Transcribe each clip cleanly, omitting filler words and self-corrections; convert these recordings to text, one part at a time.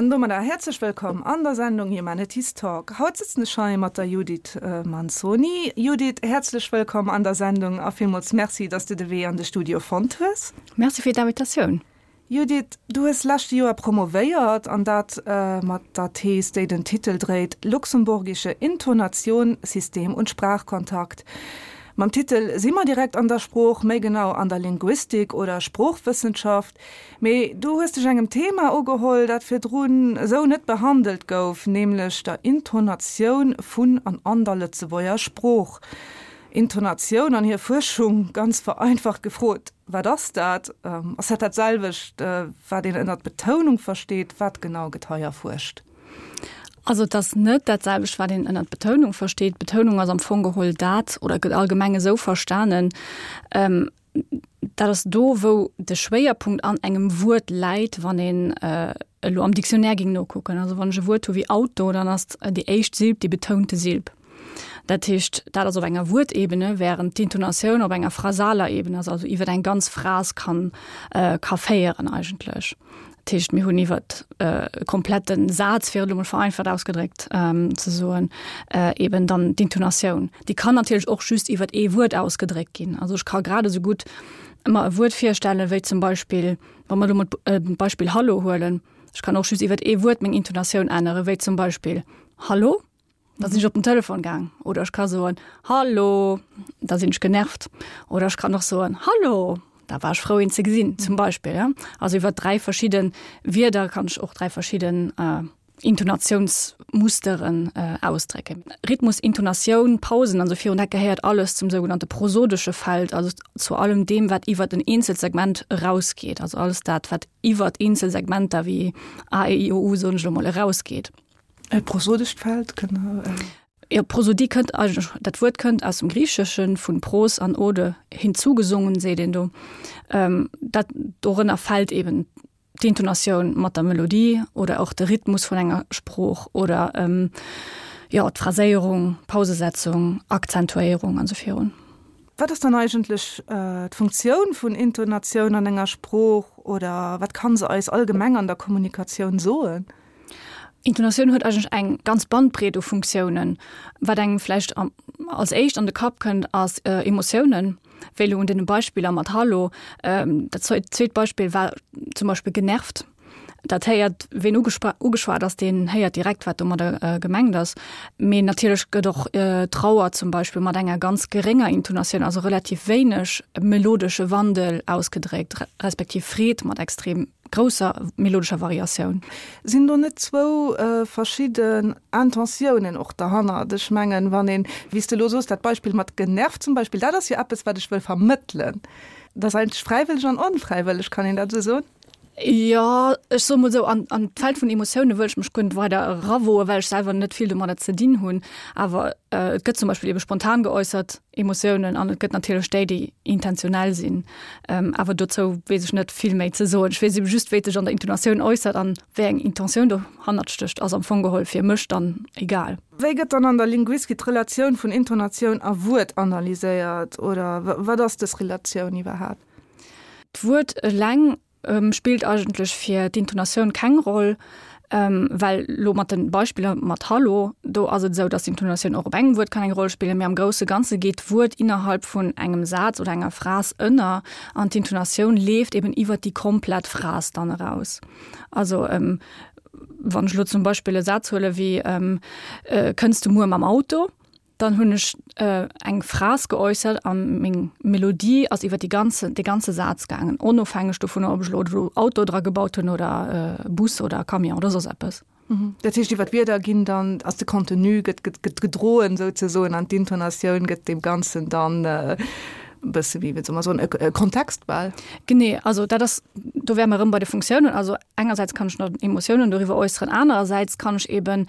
An domadder häerzlech wëllkomm an der Sendung Humanities Talk. Haut sëtzen ech hei mat der Judith Manzoni. Judith, häerzlech wëllkomm an der Sendung a villmools Merci, dass de de Wee an de Studio fonnt hues. Merci fir d'Invitatioun. Judith, du hues leschte Joer promovéiert, an dat mat der Thees, déi den Titel dréit Luxemburgische Intonation, System und Sprachkontakt. Mam Titel si mer direkt an der Sprooch, méi genau an der Linguistik oder Sproochwëssenschaft. Mee du hues dech engem Thema ugeholl, dat virdrun esou net behandelt gouf, nämlech der Intonatioun vun an an der Lëtzebuerger Sprooch. Intonatioun an hir Fuerschung, ganz vereinfacht gefrot, Wat ass dat? Ass dat dat selwecht, wat een ënnert Betounung versteet? Wat genau gëtt hei erfuerscht? Also et ass net dat selwecht, wat een ënnert Betounung versteet. Betounung ass am Fong geholl dat, oder gëtt allgemeng esou verstanen, dat ass do, wou de Schwéierpunkt an engem Wuert läit, wann een elo am Dictionnaire géing nokucken. Also wann ech e Wuert hu wéi Auto, dann ass déi éischt Silb déi betounte Silb. Dat heescht, dat ass op enger Wuertebene, während d'Intonatioun op enger phrasaler Ebene ass, also iwwer eng ganz Phras kann, ka féieren eigentlech. Dat heescht, mir hunn iwwer e komplette Saz, fir et elo mol vereinfacht ausgedréckt ze soen, eben dann d'Intonatioun. Déi kann natierlech och just iwwer ee Wuert ausgedréckt ginn. Also ech ka grad esou gutt mer e Wuert virstellen, wéi zum Beispill, wa mer elo mol d'Beispill Hallo huelen, ech kann och just iwwer ee Wuert meng Intonatioun änneren, wéi zum Beispill Hallo. Da sinn ech op den Telefon gaang. Oder ech ka soen, Hallo, da sinn ech genervt. Oder ech kann och soen, Hallo, da war ech frou een ze gesinn, zum Beispill. Ja. Also iwwer 3 verschidde Wierder kann ech och 3 verschidden äh, Intonatiounsmusteren äh, ausdrécken. Rhythmus, Intonatioun, Pausen an sou virun, dat gehéiert alles zum sougenannte prosodesche Feld, also zu allem deem, wat iwwer en eenzelt Segment erausgeet. Also alles dat, wat iwwer eenzel Segmenter wéi A, E, I, O, U, soen ech elo mol, erausgeet. E prosodescht Feld kënnt. Jo, Prosodie kënnt eigentlech, dat Wuert kënnt aus dem Griicheschen, vun pros an ode, hinzugesungen, seet een do. Dat, dorënner fält eben d'Intonatioun mat der Melodie oder och de Rhythmus vun enger Sprooch oder, jo, d'Phraséierung, Pausesetzung, Akzentuéierung an esou virun. Wat ass dann eigentlech d'Funktioun vun Intonatioun an enger Sprooch oder wat kann se eis allgemeng an der Kommunikatioun soen? Intonatioun huet eigentlech eng ganz Bandbreet u Funktiounen. Wat engem vläicht als éischt an de Kapp kënnt, ass Emotiounen, wéi elo un deene Beispiller mat Hallo. Dat zweet Beispill war zum Beispill genervt. Dat héiert, ween ugeschwat ass, deen héiert direkt, wat domadder gemengt ass. Mee natierlech gëtt och Trauer zum Beispill mat enger ganz gerénger Intonatioun, also relativ wéineg melodesche Wandel ausgedréckt, respektiv Freed mat extrem grousser melodescher Variatioun. Sinn do net zwou verschidden Intentiounen och derhannert? Ech mengen, wann een, wéi s de elo soos, dat Beispill mat genervt zum Beispill, dat ass jo eppes, wat ech wëll vermëttelen. Dat ass eigentlech fräiwëlleg an onfräiwëlleg, kann een dat esou soen? Jo, ech soe mol esou, an an d'Feld vun Emotioune wëll ech mech guer net weider erawoen, well ech selwer net vill domadder ze dinn hunn. Awer et gëtt zum Beispill ebe spontan geäussert Emotiounen an et gëtt natierlech déi, déi intentionell sinn. Awer dozou weess ech net vill méi ze soen. Ech weess ebe just, wéi et sech an der Intonatioun äussert an wéi eng Intentioun dohannert stécht, ass am Fong geholl fir mech dann egal. Wéi gëtt dann an der Linguistik d'Relatioun vun Intonatioun a Wuert analyséiert oder wat ass dës Relatioun iwwerhaapt? D'Wuert eleng spillt eigentlech fir d'Intonatioun keng Roll, well lo mat de Beispiller mat Hallo, do ass et esou, datt d'Intonatioun och op engem Wuert kann eng Roll spillen, mee am grousse Ganze geet d'Wuert innerhalb vun engem Saz oder enger Phras ënner an d'Intonatioun leeft eben iwwert déi komplett Phras dann eraus. Also wann ech lo zum Beispill e Saz huele wéi Kënns du muer mam Auto? Dann hunn ech eng Phras geäussert a meng Melodie ass iwwer déi ganze, dee ganze Saz gaangen, onofhängeg dovunner, ob ech elo do Auto dra gebaut hunn oder Bus oder Camion oder soss eppes. Dat heescht, iwwer d'Wierder ginn dann, ass de Contenu gëtt, gëtt, gëtt gedroen souzesoen an d'Intonatioun gëtt deem Ganzen dann e bësse wéi, wéi soll mer soen, e Kontext bal. Genee, also dat ass, do wäre mer erëm bei de Funktiounen. Also engersäits kann ech nach Emotiounen doriwwer äusseren, anerersäits kann ech eben,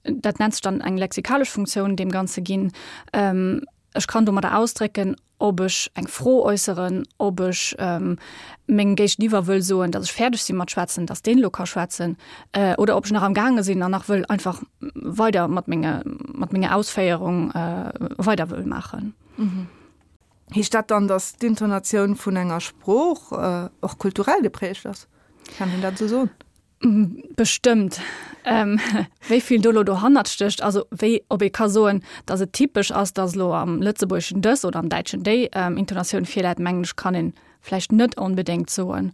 dat nennt sech dann eng lexikalesch Funktioun, deem Ganze ginn. Ech kann domadder ausdrécken, ob ech eng Fro äusseren, ob ech mengem Géigeniwwer wëll soen, datt ech fäerdeg si mat schwätzen, datt deen elo ka schwätzen, oder ob ech nach am gaange sinn an nach wëll einfach weider mat menge mat menger Ausféierung weider wëll maachen. Heescht dat dann, datt d'Intonatioun vun enger Sprooch och kulturell geprägt ass? Kann een dat esou soen? Bestëmmt. Wéi vill do elo dohannert stécht, also wéi, ob ee ka soen, datt et typesch ass, datt elo am Lëtzebuergeschen dës oder am Däitschen déi Intonatioun virläit, mengen ech, kann ee vläicht net onbedéngt soen.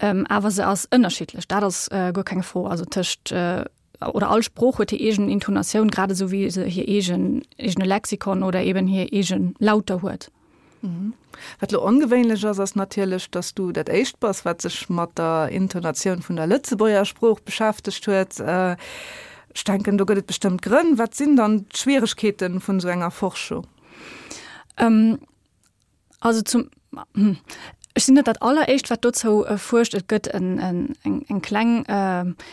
Awer se ass ënnerschiddlech, dat ass guer keng Fro. Also tëscht, oder all Sprooch huet hir eegen Intonatioun, grad esou wéi se hir eegen, eegene Lexikon oder eben hir eege Lauter huet. Wat elo ongewéinlech ass, ass natierlech, dass du dat éischt bass, wat sech mat der Intonatioun vun der Lëtzebuerger Sprooch beschäftegt huet. Ech denken, do gëtt et bestëmmt Grënn. Wat sinn dann d'Schwieregkeete vun esou enger Forschung? Also zum, ech sinn net dat alleréischt, wat dozou fuerscht. Et gëtt eng kleng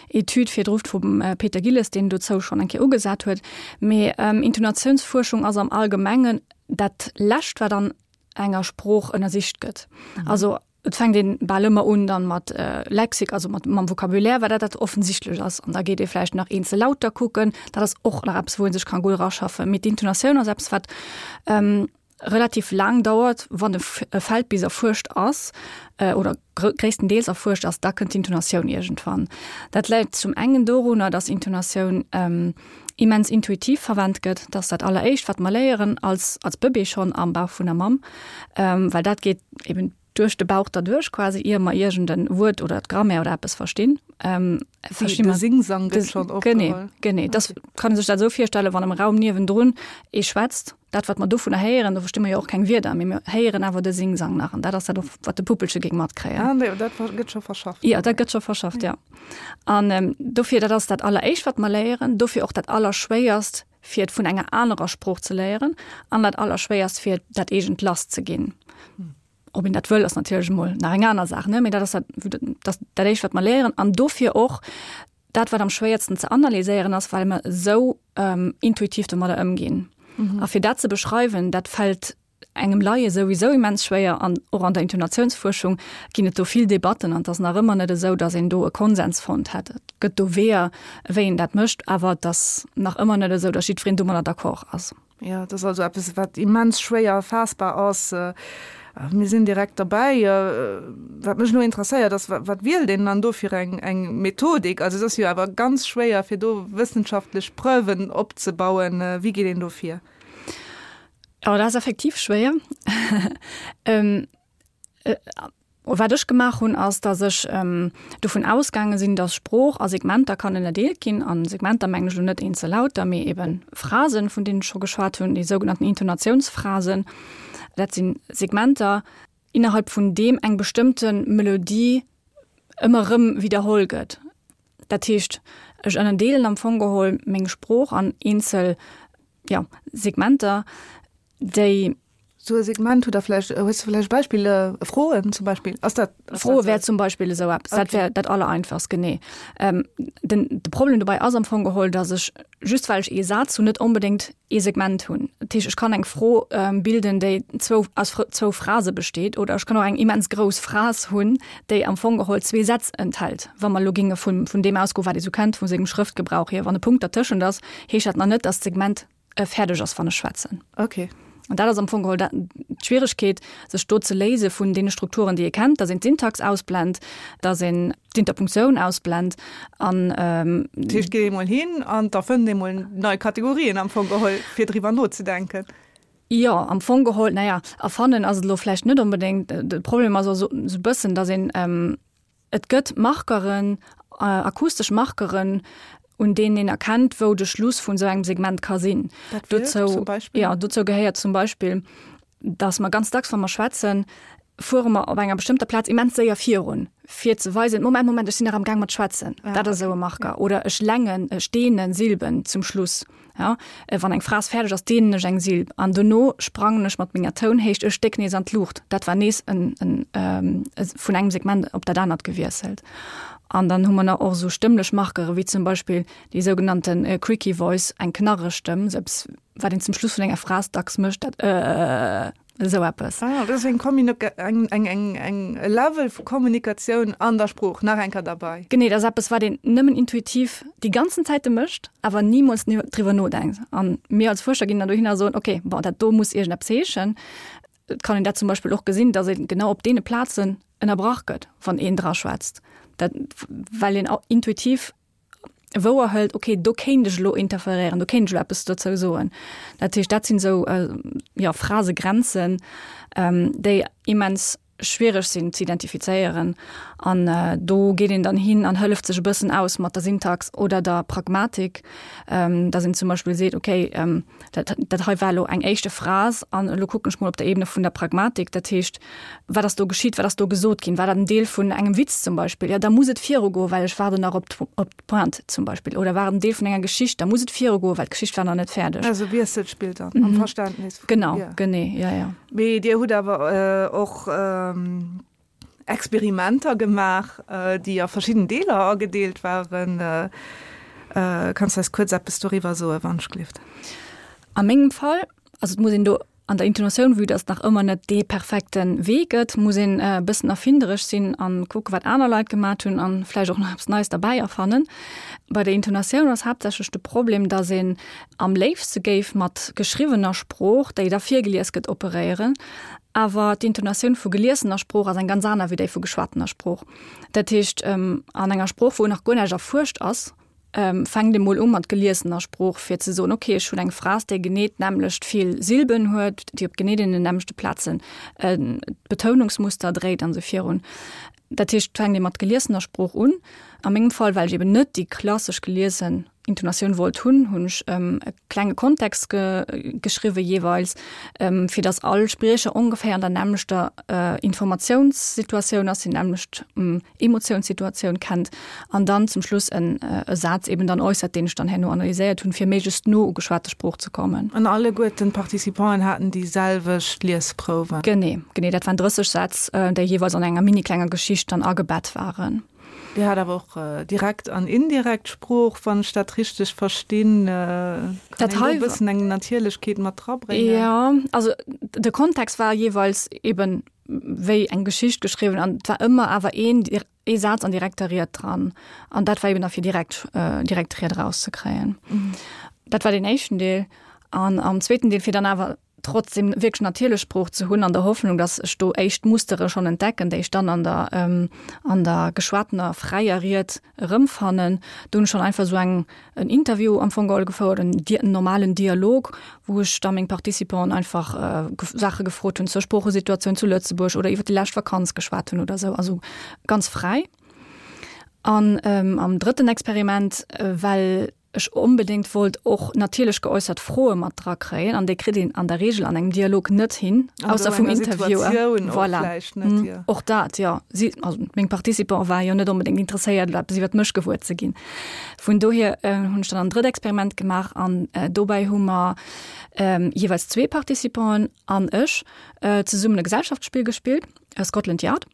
Etüd virdru vum Peter Gilles, deen dozou schonn eng Kéier ugesat huet. Mee Intonatiounsfuerschung ass am Allgemengen dat Lescht, wat an enger Sprooch ënnersicht gëtt. Also et fänkt een bal ëmmer un dann mat Lexik, also mat mam Vocabulaire, well dat dat offensichtlech ass. An da geet ee vläicht nach eenzel Lauter kucken. Dat ass och nach eppes, wou ee sech ka gutt eraschaffen. Mee d'Intonatioun ass eppes, wat relativ laang dauert, wann e Feld bis erfuerscht ass oder gréisstendeels erfuerscht ass, da kënnt d'Intonatioun iergendwann. Dat läit zum engen dorunner, datt Intonatioun immens intuitiv verwennt gëtt, dat ass dat alleréischt, wat mer léieren als als Bëbee schonn am Bauch vun der Mamm, well dat geet eben duerch de Bauch derduerch quasi, ier mer iergend en Wuert oder d'Grammaire oder eppes verstinn. Versti mer. De Singsang gëtt schonn opgeholl. Genee, genee. Dat kann ee sech dat esou virstellen, wann am Raum niewendrun ee schwätzt, Dat, wat mer dovunner héieren, do versti mer jo och keng Wierder, mee mir héieren awer de Singsang nach an dat ass dat och, wat de Puppelche géing matkréien. Ah, nee, dat gëtt scho verschafft. Jo, dat gëtt scho verschafft, jo. An dofir, dat ass dat Alleréischt, wat mer léieren, dofir och dat Allerschwéierst, fir et vun enger anerer Sprooch ze léieren an dat Allerschwéierst, fir dat eegent lasszeginn. Ob een dat wëll, ass natierlech emol nach eng aner Saach, ne, mee dat ass dat, dat, dat Éischt, wat mer léieren an dofir och dat, wat am schwéiersten ze analyséieren ass, well mer esou intuitiv domadder ëmginn. A fir dat ze beschreiwen, dat fält engem Laie souwisou immens schwéier an och an der Intonatiounsfuerschung ginn et do vill Debatten an et ass nach ëmmer net esou, datt een do e Konsens fonnt hätt. Et gëtt do Weeër, wéi een dat mécht, awer et ass nach ëmmer net esou, datt jiddwereen domadder d'accord ass. Jo, et ass also eppes, wat immens schwéier erfaassbar ass. Mir sinn direkt derbäi. Wat mech elo interesséiert ass, Wat wielt een dann do fir eng Methodik? Also et ass jo awer ganz schwéier, fir do wëssenschaftlech Preuven opzebauen. Wéi geet een do vir? Jo, dat ass effektiv schwéier. Wat ech gemaach hunn, ass, datt ech dovun ausgaange sinn, datt Sprooch a Segmenter kann ënnerdeelt ginn. A Segmenter mengen ech elo net eenzel Lauter, mee ebe Phrasen, vun deenen ech scho geschwat hunn, déi sougenannten Intonatiounsphrasen. Dat si Segmenter, innerhalb vun deem eng bestëmmte Melodie ëmmer erëm widderholl gëtt. Dat heescht, ech ënnerdeelen am Fong geholl meng Sprooch an eenzel, jo, Segmenter, déi. Sou e Segment, hutt Der vläicht, hues de vläicht e Beispill, Froen zum Beispill? Ass dat. Froe wär zum Beispill esou eppes. Dat wär dat Allereinfachst, genee. Den, de Problem dobäi ass am Fong geholl, datt ech, just well ech ee Saz hunn, net onbedéngt ee Segment hunn. Dat heescht, ech kann eng Fro bilden, déi zwou, aus zwou Phrase besteet, oder ech kann och eng immens grouss Phras hunn, déi am Fong geholl zwee Sätz enthält. Wa mer elo géinge vun, vun deem ausgoen, wat ee sou kennt vu sengem Schrëftgebrauch hier, wann e Punkt dertëschent ass, heescht dat nach net, datt d'Segment fäerdeg ass, wann ech schwätzen. Okay. An dat ass am Fong geholl d'Schwieregkeet, sech do ze léise vun deene Strukturen, déi ee kennt, datt een d'Syntax ausblent, datt een d'Interpunktioun ausblent an. Dat heescht, et geet ee mol hin an da fënnt ee mol nei Kategorien am Fong geholl, fir driwwer nozedenken. Jo, am Fong geholl, naja, erfannen ass et elo vläicht net onbedéngt. De Problem ass och esou e bëssen, datt een, Et gëtt Markeren, akustesch Markeren, un deenen een erkennt, wou de Schluss vun esou engem Segment ka sinn. Dat wier zum Beispill? Jo, dozou gehéiert zum Beispill, dass mer ganz dacks, wa mer schwätzen, fuere mer op enger bestëmmter Plaz immens séier virun, fir ze weisen, Moment, Moment, ech sinn nach am Gaang mat schwätzen. Dat ass esou e Marker. Oder ech längen, ech deenen Silben zum Schluss. Ja, wann eng Phras fäerdeg ass, deenen ech eng Silb an dono sprangen ech mat menger Tounhéicht e Stéck nees an d'Luucht. Dat war nees en, en, vun engem Segment op dat anert gewiesselt. An dann hu mer nach och esou stëmmlech Markere wéi zum Beispill déi sougenannte Creaky Voice, eng knarreg Stëmm, esou eppes, wat een zum Schluss vun enger Phras dacks mécht, dat Ëëëëëë. Esou eppes. Ah, dat ass eng Kommunika-, eng, eng, eng, eng, e Level vu Kommunikatioun an der Sprooch nach eng Kéier derbei. Genee, dat ass eppes, wat een nëmmen intuitiv déi ganzen Zäite mécht, awer nimools driwwer nodenkt. An mir als Fuerscher ginn dann dohin a soen, okay, bon, dat do muss iergendeppes heeschen. Et kann een dat zum Beispill och gesinn, datt ee genau op deene Plazen ënnerbrach gëtt, wann een dra schwätzt. Dat, well een intuitiv wouer hëlt, okay, do kéint ech elo interferéieren, do kéint ech elo eppes dozou soen. Dat heescht, dat sinn esou, jo, Phrasegrenzen, déi immens schwiereg sinn ze identifizéieren. An do geet een dann hin an hëlleft sech e bëssen aus mat der Syntax oder der Pragmatik, dass een zum Beispill seet, okay, dat, dat hei war elo eng éischte Phrase an elo kucken ech mol op der Ebene vun der Pragmatik, dat heescht, wat ass do geschitt, wat ass do gesot ginn, war dat en Deel vun engem Witz zum Beispill, jo da muss et virugoen, well ech waarden nach op op d'Pointe zum Beispill, oder war et en Deel vun enger Geschicht, da muss et virugoen, well d'Geschicht war nach net fäerdeg. Also Wiesselspill dann am Verständnis vun, Genau, genee, jo, jo. Mee Dir hutt awer och Experimenter gemaach, déi a verschidden Deeler agedeelt waren. Kanns du eis kuerz eppes doriwwer soen, wann ech gelift? A mengem Fall, also et muss een do an der Intonatioun, vue dass et nach ëmmer net dee perfekte Wee gëtt, muss een e bëssen erfinderesch sinn an kucke wat aner Leit gemat hunn an vläicht och nach eppes Neies derbäi erfannen. Bei der Intonatioun ass haaptsächlech de Problem, dass een am léifste géif mat geschriwwener Sprooch, déi da virgelies gëtt, operéieren. Awer d'Intonatioun vu geliesener Sprooch ass eng ganz aner wéi déi vu geschwatener Sprooch. Dat heescht, an enger Sprooch, wou nach guer näischt erfuerscht ass, fänkt ee mol u mat geliesener Sprooch, fir ze soen, okay, ech hunn eng Phras, déi genee d'nämmlecht vill Silben huet, déi op genee deenen nämmlechte Plazen d'Betounungsmuster dréit an esou virun. Dat heescht, et fänkt ee mat geliesener Sprooch un. A mengem Fall, well ech eben net déi klassesch geliesen Intonatioun wollt hunn, hunn ech e klenge Kontext ge geschriwwe jeeweils, fir datt all Spriecher ongeféier an der nämmlechter Informatiounssituatioun ass, déi nämmlecht Emotiounssituatioun kennt an dann zum Schluss en e Saz eben dann äussert, deen ech dann herno analyséiert hunn, fir méiglechst no u geschwate Sprooch ze kommen. An alleguerten d'Participanten haten déi selwecht Liesprouwen? Genee, genee. Dat waren 30 Sätz, déi jeeweils an enger mini klenger Geschicht dann agebett waren. Dir hat awer och direkt an indirekt Sprooch, wann ech dat richteg verstinn. Kann een do e bëssen eng Natierlechkeet mat drabréngen? Jo, also de Kontext war jeeweils eben wéi eng Geschicht geschriwwen an et war ëmmer awer een ee Saz an direkter Ried dran. An dat war eben da fir direkt direkt Ried erauszekréien. Dat war deen éischten Deel. An am zweeten Deel, fir dann awer trotzdem wierklech natierlech Sprooch ze hunn, an der Hoffnung, datt ech do éischt Mustere schonn entdecken, déi ech dann an der, an der geschwatener fräier Ried erëmfannen. Do hunn ech schonn einfach esou eng, en Interview am Fong geholl gefouert, en Di-, en normalen Dialog, wou ech da meng Participanten einfach Saache gefrot hunn zur Sproochesituatioun zu Lëtzebuerg oder iwwer déi lescht Vakanz geschwat hunn oder esou, also ganz fräi. An am drëtten Experiment, well ech onbedéngt wollt och natierlech geäussert Froe mat dra kréien, an déi kritt een an der Regel an engem Dialog net hin, ausser vum Interviewer. Voilà. Och dat, jo. Si, also meng Participante ware jo net onbedéngt interesséiert, elo eppes iwwert mech gewuer ze ginn. Vun dohier hunn ech dann en drëtt Experiment gemaach an dobäi hu mer jeeweils zwee Participanten an ech zesummen e Gesellschaftsspill gespillt, Scotland Yard.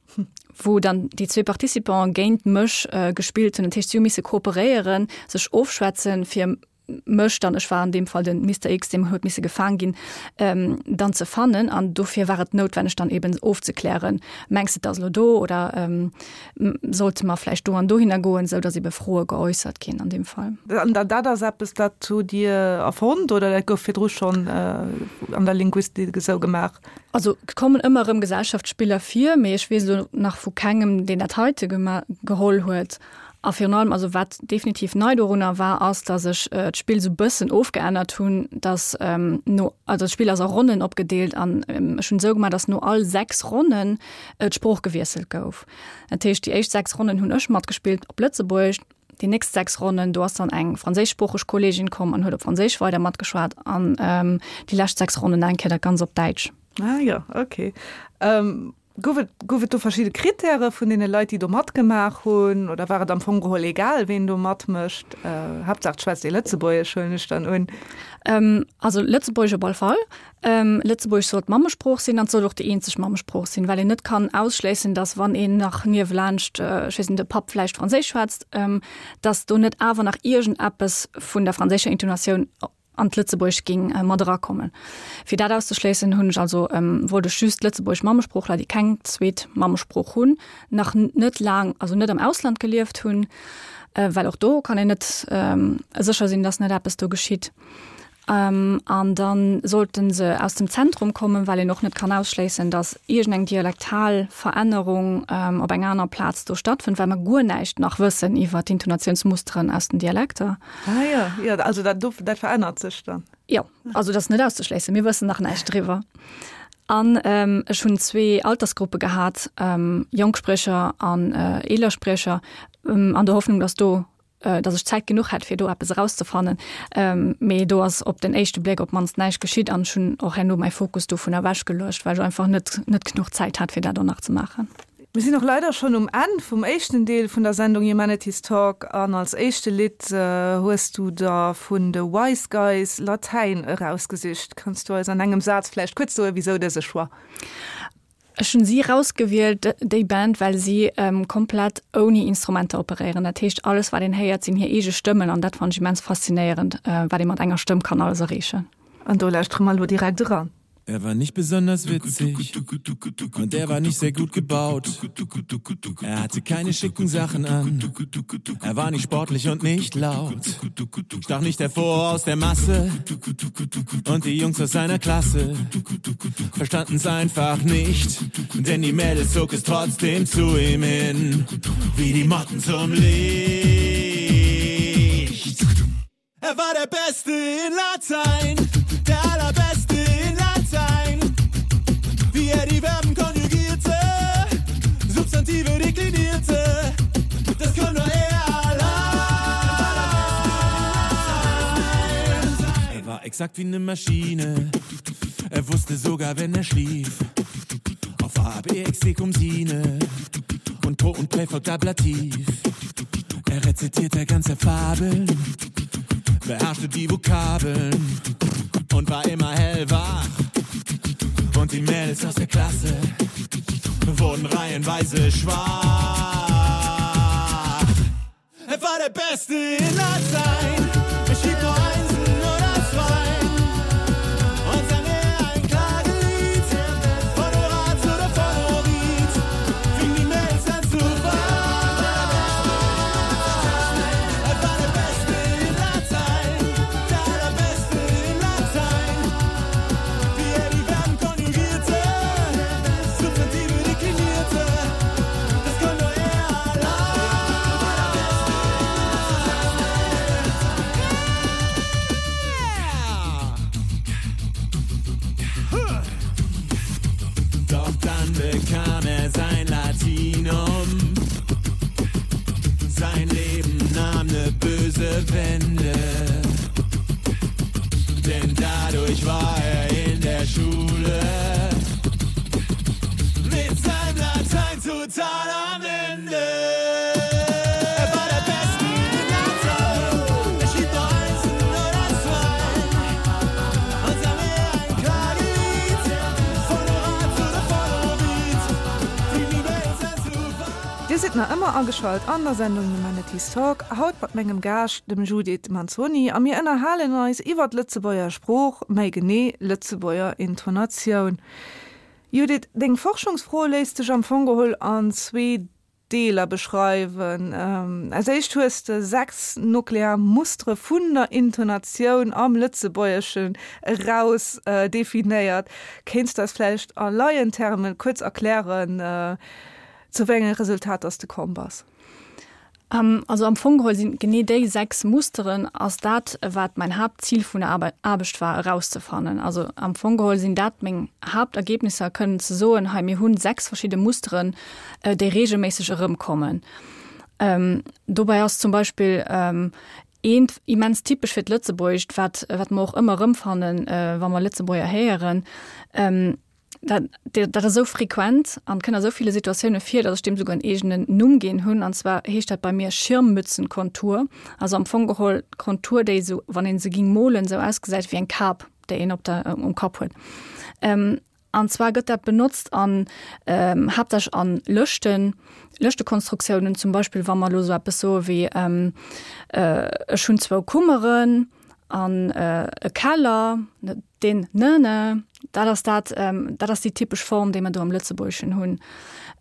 wou dann déi zwee Participants géint mech gespillt hunn. Dat heescht, si hu misse kooperéieren, sech ofschwätzen, fir mech dann, ech war an deem Fall den Mister X, deem huet misse gefaang ginn, dann ze fannen. An dofir war et noutwenneg, dann eben ofzeklären, Mengs de, et ass elo do oder sollte mer vläicht do an dohinner goen, esou datt ebe Froe geäussert ginn an deem Fall. An dat ass eppes, dat hutt Dir erfonnt oder dat gouf virdru schonn an der Linguistik esou gemaach? Also et kommen ëmmer erëm Gesellschaftsspiller vir, mee ech weess elo nach vu kengem, deen dat heite geholl huet. A virun allem, also wat definitiv nei dorunner war, ass, datt ech d'Spill esou bëssen ofgeännert hunn, datt no, also d'Spill ass a Ronnen opgedeelt an ech hunn esou gemaach, datt no all 6 Ronnen d'Sprooch gewiesselt gouf. Dat heescht, déi éischt 6 Ronnen hunn ech matgespillt op Lëtzebuergesch, Déi nächst 6 Ronnen, do ass dann eng franséischsproocheg Kolleegin komm an huet op Franséisch weider matgeschwat an déi lescht 6 Ronnen nach eng Kéier dat Ganz op Däitsch. Ah jo, okay. Gouf et, gouf et do verschidde Krittäre vun deene Leit, déi do matgemaach hunn oder war et am Fong geholl egal, ween do matmécht? Haaptsaach et schwätzt ee Lëtzebuergesch, huelen ech dann un. Also Lëtzebuergesch op all Fall. Lëtzebuergesch soll d'Mammesprooch sinn an et soll och déi eenzeg Mammesprooch sinn, well een net kann ausschléissen, datt wann een nach niewelaanscht, ech weess net, de Papp vläicht Franséisch schwätzt, datt do net awer nach iergendeppes vun der franséischer Intonatioun an d'Lëtzebuergescht géing mat erakommen. Fir dat auszeschléissen, hunn ech also, wollt ech just lëtzebuergesch Mammesproochler, déi keng zweet Mammesprooch hunn, nach net laang, also net am Ausland gelieft hunn, well och do kann een net sécher sinn, datt net eppes do geschitt. An da sollte se aus dem Zentrum kommen, well een och net kann ausschléissen, datt iergendeng dialektal Verännerung op enger aner Plaz do stattfënnt, well mer guer näischt nach wëssen iwwer d'Intonatiounsmusteren aus den Dialekter. Ah jo, jo, also dat do, dat verännert sech dann. Jo, also dat ass net auszeschléissen, mir wëssen nach näischt driwwer. An ech hunn zwee Altersgruppe gehat, jonk Spriecher an eeler Spriecher, an der Hoffnung, datt do datt ech Zäit genuch hätt, fir do eppes erauszefannen. Mee do ass op den éischte Bléck op d'mannst näischt geschitt an ech hunn och herno mäi Fokus dovun ewechgeluecht, well ech einfach net net genuch Zäit hat, fir dat och nach ze maachen. Mir sinn och leider schonn um Enn vum éischten Deel vun der Sendung Humanities Talk an als éischte Lidd hues du der vun de Wise Guys Latäin erausgesicht. Kanns du eis an engem Saz vläicht kuerz soen, wisou dëse Choix? Ech hunn si rausgewielt, déi Band, well si komplett ouni Instrumenter operéieren. Dat heescht, alles wat een héiert, sinn hir eege Stëmmen an dat fannen ech immens faszinéierend, wat ee mat enger Stëmm kann alles erreechen. An do lauschtere mer elo direkt eran. Er war nicht besonders witzig und er war nicht sehr gut gebaut. Er hatte keine schicken Sachen an. Er war nicht sportlich und nicht laut. Stach nicht hervor aus der Masse und die Jungs aus seiner Klasse verstanden's einfach nicht, denn die Mädels zog es trotzdem zu ihm hin, wie die Motten zum Licht. Er war der Beste in Latein, der allerbeste in Latein. Wie er die Verben konjugierte, Substantive deklinierte, das kann nur er allein. Er war exakt wie eine Maschine, er wusste sogar, wenn er schlief. Auf A, B, X, D, cum sine und Po und Präfort Ablativ. Er rezitierte ganze Fabeln, beherrschte die Vokabeln und war immer hellwach. Und die Mädels aus der Klasse wurden reihenweise schwach. Er war der Beste in Latein. Er schrieb nur Einsen oder Zweien und sang er ein Klagelied von Horaz oder von Ovid, fing die Mädels an zu weinen. Er war der Beste in Latein, der allerbeste in Latein. Wie er die Verben konjugierte, Substantive deklinierte, das kann nur er allein. Doch dann bekam er sein Latinum. Sein Leben nahm ne böse Wende. Denn dadurch war er in der Schule mit seinem Latein total am Ende. Er war der Beste in Latein. Er schrieb nur Einsen oder Zweien und sang er ein Klagelied von Horaz oder von Ovid. Fing die Welt an zu weinen. Dir sidd nach ëmmer ageschalt an der Sendung Humanities Talk, haut mat mengem Gaascht, dem Judith Manzoni, a mir ënnerhalen eis iwwer d'Lëtzebuerger Sprooch, méi genee Lëtzebuerger Intonatioun. Judith, deng Forschungsfro léisst sech am Fong geholl an zwee Deeler beschreiwen. Als éischt hues de 6 nuklear Mustere vun der Intonatioun am Lëtzebuergeschen eraus definéiert. Kéints de eis vläicht a Laientermen kuerz erklären, zu wéi enge Resultater s de komm bass? Also am Fong geholl sinn genee déi 6 Musteren ass dat, wat mäin Haaptzil vun der Aarbecht war erauszefannen. Also am Fong geholl sinn dat meng Haaptergebnisser, kënnen ze soen, hei mir hunn 6 verschidde Musteren, déi regelméisseg erëmkommen. Dobäi ass zum Beispill eent immens typesch fir d'Lëtzebuergescht, wat wat mer och ëmmer erëmfannen, wa mer Lëtzebuerger héieren, Dat, dat ass esou frequent an kënnt a sou ville Situatioune vir, datt ech deem souguer en eegenen Numm ginn hunn. An zwar heescht dat bei mir Schirmmützenkontur. Also am Fong geholl d'Kontur, déi esou, wann ee se ging molen, esou ausgesäit wéi eng Kap, déi een op der, um Kapp huet. An zwar gëtt dat benotzt an, haaptsächlech an Lëschten, Lëschtekonstruktiounen, zum Beispill wa mer elo esou eppes soe wéi, ech hunn zwou Kummeren an e Keller, Deen ne ne, dat ass dat, dat ass déi typesch Form, déi mer do am Lëtzebuergeschen hunn.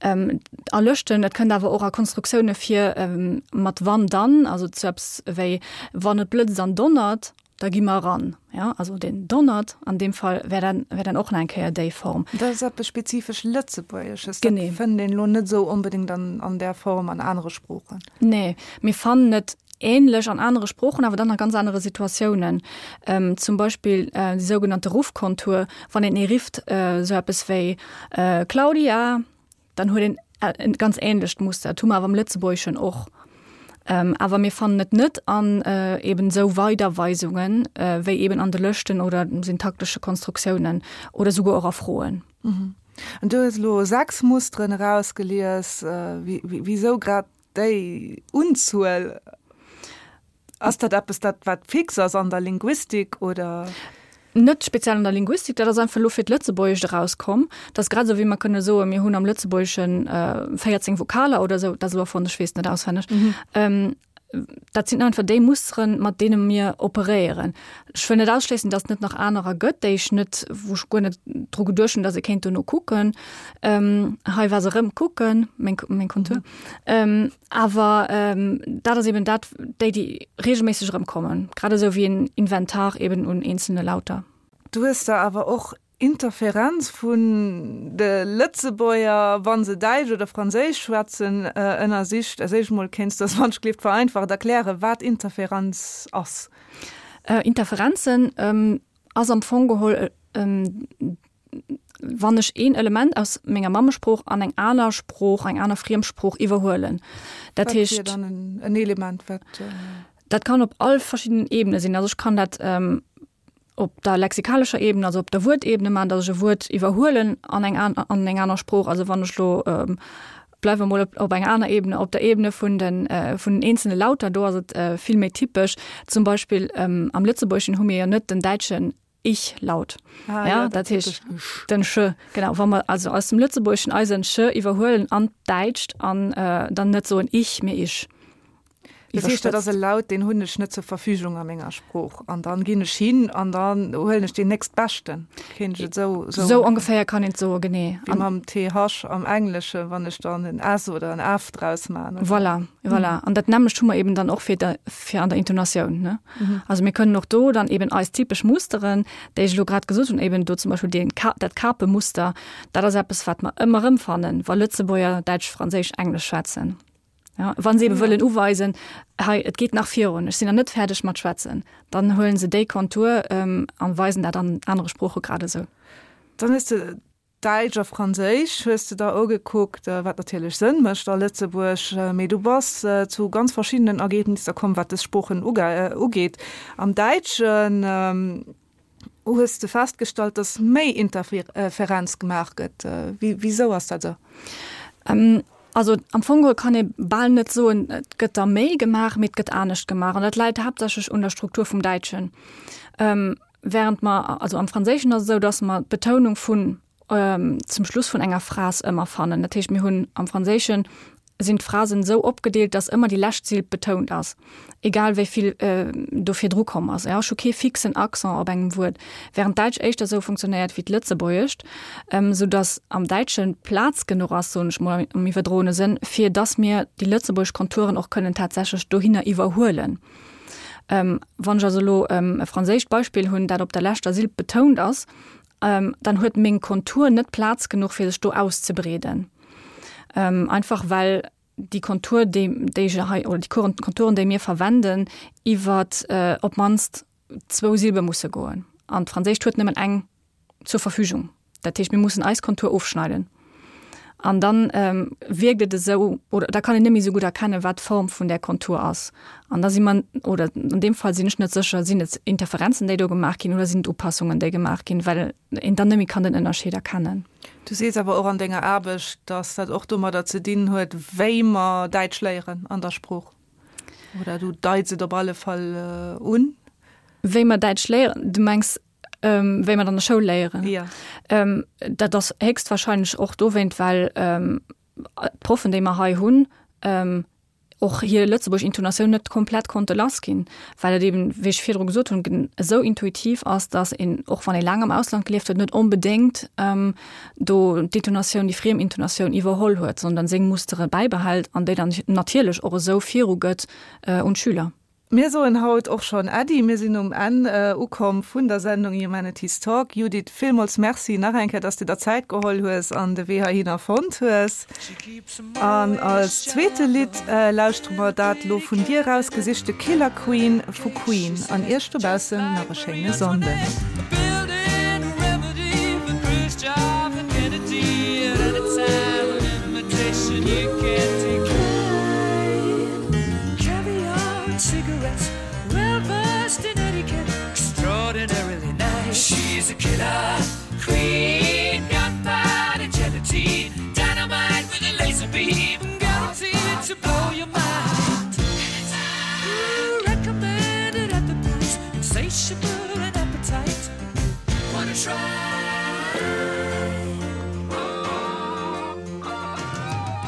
A Lëschten, et kënnt awer och a Konstruktioune vir mat wann dann, also zu eppes wéi wann et blëtzt an donnert. Da gi mer eran. Ja, also den donnert an deem Fall wär dann, wär dann och nach eng Kéier déi Form. Dat ass eppes spezifesch Lëtzebuergesches. Genee. Dat fënnt een elo net esou onbedéngt an, an där Form an anere Sproochen. Nee, mir fannen et änlech an anere Sproochen, awer dann a ganz anere Situatiounen. Zum Beispill déi sougenannte Ruffkontur, wann een ee rifft, esou eppes wéi Claudia! Dann huet een e ganz änlecht Muster. Dat hu mer awer am Lëtzebuergeschen och. Awer mir fannen et net an eben esou Weiderweisungen, wéi eben an de Lëschten oder syntaktesche Konstruktiounen oder souguer och a Froen. An du hues elo 6 Musteren erausgelies. Wisou grad déi Unzuel? Ass dat eppes, dat wat fix ass an der Linguistik oder? Net speziell an der Linguistik, dat ass einfach elo fir d'Lëtzebuergescht erauskomm. Dat ass grad esou wéi mer kënne soen, mir hunn am Lëtzebuergesche 14 Vokaler oder esou, dat ass elo erfonnt, ech weess et net auswenneg. Dat sinn einfach déi Musteren, mat deene mir operéieren. Ech wëll net ausschléissen, datt et net nach anerer gëtt, déi ech net, wou ech guer net dru geduecht hunn, datt ee kéint dono kucken. Hei war se erëm, kucken, meng, meng Kontur. Awer dat ass eben dat, déi, déi reegelméisseg erëmkommen, grad esou wéi en Inventar eben un eenzelne Lauter. Du hues der awer och Interferenz vun de Lëtzebuerger, wa se Däitsch oder Franséisch schwätzen, ënnersicht. Als éischt mol kéints du eis wann ech gleeft vereinfacht erklären, wat Interferenz ass. Interferenzen ass am Fong geholl, wann ech een Element aus menger Mammesprooch an eng aner Sprooch, eng aner Friemsprooch iwwerhuelen. Dat heescht. Wat wier dann en Element, wat. Dat kann op all verschiddenen Ebene sinn. Also ech kann dat op der lexikalescher Ebene, also op der Wuertebene maachen, datt ech e Wuert iwwerhuelen an eng an eng aner Sprooch. Also wann ech elo, bleiwe mer mol op enger aner Ebene, op der Ebene vun den vun den eenzelne Lauter, do ass et vill méi typesch. Zum Beispill am Lëtzebuergeschen hu mir jo net den däitschen Ich-Laut. Ah, ja, dat heescht den Sch, genau. Wa mer also aus dem Lëtzebuergeschen eisen Sch iwwerhuelen an d'Däitscht an dann net soen ich, mee isch. Dat heescht, dat ass e Laut, deen hunn ech net zur Verfügung a menger Sprooch. An dann ginn ech hin an dann huelen ech deen nächstbeschten. Kéint ech et esou soen? Esou ongeféier kann een et soen, genee. Wéi mam TH am Engleschen, wann ech dann en S oder en F draus maachen. Voilà, voilà. An dat nämmlecht hu mer eben dann och fir de, fir an der Intonatioun, ne? Also mir kënnen och do dann eben eis typesch Musteren, déi ech elo grad gesot hunn, eben do zum Beispill deen Ka, dat Kapemuster, dat ass eppes, wat mer ëmmer erëmfannen, wa Lëtzebuerger Däitsch, Franséisch, Englesch schwätzen. Ja, wann se eben wëllen uweisen, hei, et geet nach virun, ech sinn nach net fäerdeg mat schwätzen, dann huelen se déi Kontur ähm, an weisen dat an anere Sprooche grad esou. Dann hues de Däitsch a Franséisch hues de der ugekuckt, wat natierlech Sënn mécht a Lëtzebuerg, mee du bass zu ganz verschiddenen Ergebnisser komm, wat dës Sproochen ugeet. Am Däitschen hues de festgestallt, datt méi Interferenz gemaach gëtt. Wisou ass dat esou? Also am Fong geholl kann ee bal net soen, et gëtt der méi gemaach, mee et gëtt anescht gemaach. An dat läit haaptsächlech un der Struktur vum Däitschen. Während mer, also am Franséischen ass et esou, datt mer d'Betounung vun zum Schluss vun enger Phras ëmmer fannen. Dat heescht, mir hunn am Franséischen sinn d'Phrasen esou opgedeelt, datt ëmmer déi lescht Silb betount ass, egal wéi vill do virdru komm ass. Ech hu kee fixen Accent op engem Wuert, während d'Däitsch éischter esou funktionéiert wéi d'Lëtzebuergescht, sou datt am Däitsche Plaz genuch ass, soen ech mol am iwwerdroene Sënn, fir datt mir déi lëtzebuergesch Konturen och kënnen tatsächlech dohinner iwwerhuelen. Wann ech also elo e franséischt Beispill hunn, dat op der leschter Silb betount ass, dann huet meng Kontur net Plaz genuch fir sech do auszebreeden. Einfach well déi Kontur, déi déi ech hei oder déi Konturen, déi mir verwenden, iwwer op d'mannst zwou Silbe musse goen. An d'Franséischt huet nëmmen eng zur Verfügung. Dat heescht, mir mussen eis Kontur ofschneiden. An dann wierkt et esou, oder da kann een net méi esou gutt erkennen, wat d'Form vun där Kontur ass. An da si mer, oder an deem Fall sinn ech net sécher, sinn et Interferenzen, déi do gemaach ginn, oder sinn et Upassungen, déi gemaach ginn, well een dann net méi kann den Ënnerscheed erkennen. Du sees awer och an denger Aarbecht, datt dat och domadder ze dinn huet, wéi mer Däitsch léieren an der Sprooch. Oder du deits et op alle Fall un. Wéi mer Däitsch léieren? Du mengs wéi mer an der Schoul léieren. Ja. Ähm, dat ass héchstwahrscheinlech och dowéint, well ähm, d'Proffen, déi mer hei hunn, ähm, och hir lëtzebuergesch Intonatioun net komplett konnte lass ginn, well et eben, wéi ech virdru gesot hunn, esou intuitiv ass, datt een, och wann ee laang am Ausland gelieft huet, net onbedéngt ähm, do d'Intonatioun, déi friem Intonatioun iwwerholl huet, sondern seng Mustere bäibehält an déi dann natierlech och esou virugëtt äh, un d'Schüler. Mir soen haut och schonn Äddi. Mir sinn um Enn ukomm vun der Sendung Humanities Talk. Judith, villmools Merci nach eng Kéier, dass du der Zäit geholl hues an de Wee heihinner fonnt hues. An als zweete Lidd lauschtere mer dat lo vun dir erausgesichte Killer Queen vu Queen. An iech dobaussen nach e schéine Sonnden. She's a killer.